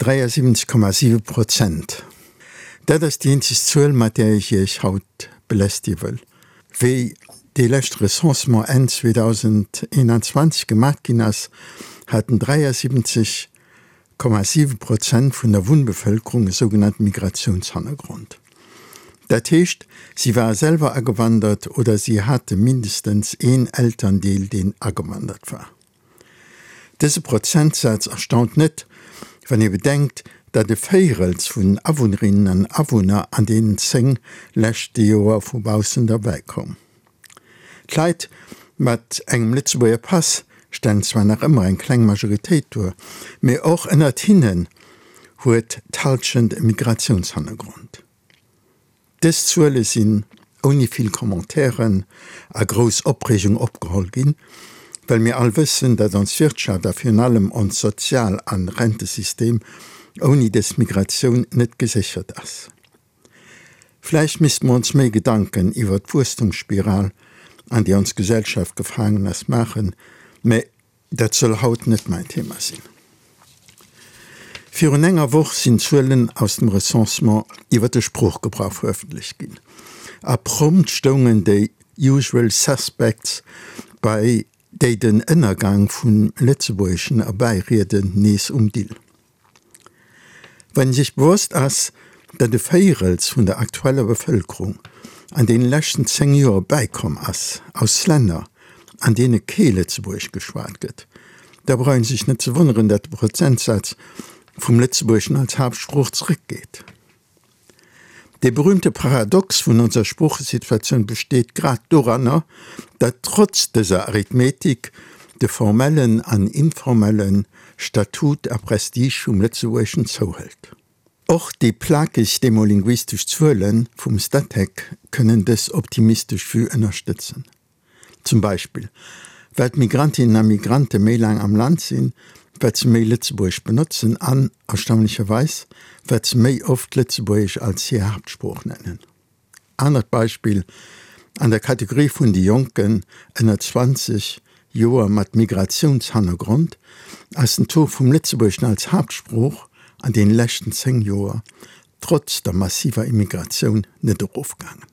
73,7 Prozent. Dat ass déi eenzeg Zuel, mat där ech Iech haut belästige wëll. Wéi dee leschte Recensement Enn 2021 gemat ginn ass, haten 73,7 Prozent vun der Wunnbevëlkerung e sougenannte Migratiounshannergrond. Dat heescht, si ware selwer agewandert oder si hate mindestens een Elterndeel, deen agewandert war. Dëse Prozentsaz erstaunt net, wann ee bedenkt, datt e Véirels vun den Awunnerinnen an Awunner an deenen 10 leschte Joer vu baussen derbäi koum. D'Leit mat engem Lëtzebuerger Pass stellen zwar nach ëmmer eng kleng Majoritéit duer, mee och ënnert hinnen huet d'Hallschent e Migratiounshannergrond. Dës Zuele sinn ouni vill Commentairen a grouss Opreegung opgeholl ginn, well mir all wëssen, datt ons Wirtschaft a virun allem ons Sozial an Rentesystem ouni dës Migratioun net geséchert ass. Vläicht misste mer ons méi Gedanken iwwert d'Wuesstumsspiral, an déi ons Gesellschaft gefaangen ass, maachen, mä Dat soll haut net mäin Thema sinn. Virun enger Woch sinn d'Zuelen aus dem Recensement iwwer de Sproochgebrauch verëffentlecht ginn. A prompt stoungen déi usual suspects, bei déi den Ënnergang vum Lëtzebuergeschen erbäirieden, nees um Dill. Wann ee sech bewosst ass, datt e Véirels vun der aktueller Bevëlkerung an deene leschten 10 Joer bäikomm ass aus Länner, an deene kee Lëtzebuergesch geschwat gëtt, da brauch ee sech net ze wonneren, datt de Prozentsaz vum Lëtzebuergeschen als Haaptsprooch zeréckgeet. Dee berühmte Paradox vun onser Sproochesituatioun besteet grad doranner, datt trotz dëser Arithmetik de formellen an informelle Statut a Prestige vum Lëtzebuergeschen zouhëlt. Och déi plakeg demolinguistesch Zuele vum Statec kënnen dës optimistesch Vue ënnerstëtzen. Zum Beispill, well d'Migrantinnen a Migrante méi laang am Land sinn, wat se méi Lëtzebuergesch benotzen an, erstaunlecherweis, wat se méi oft Lëtzebuergesch als hir Haaptsprooch nennen. Anert Beispill, An der Kategorie vun de Jonken ënner 20 Joer mat Migratiounshannergrond ass den Taux vum Lëtzebuergeschen als Haaptsprooch an deene leschten 10 Joer trotz der massiver Immigratioun net erofgaangen.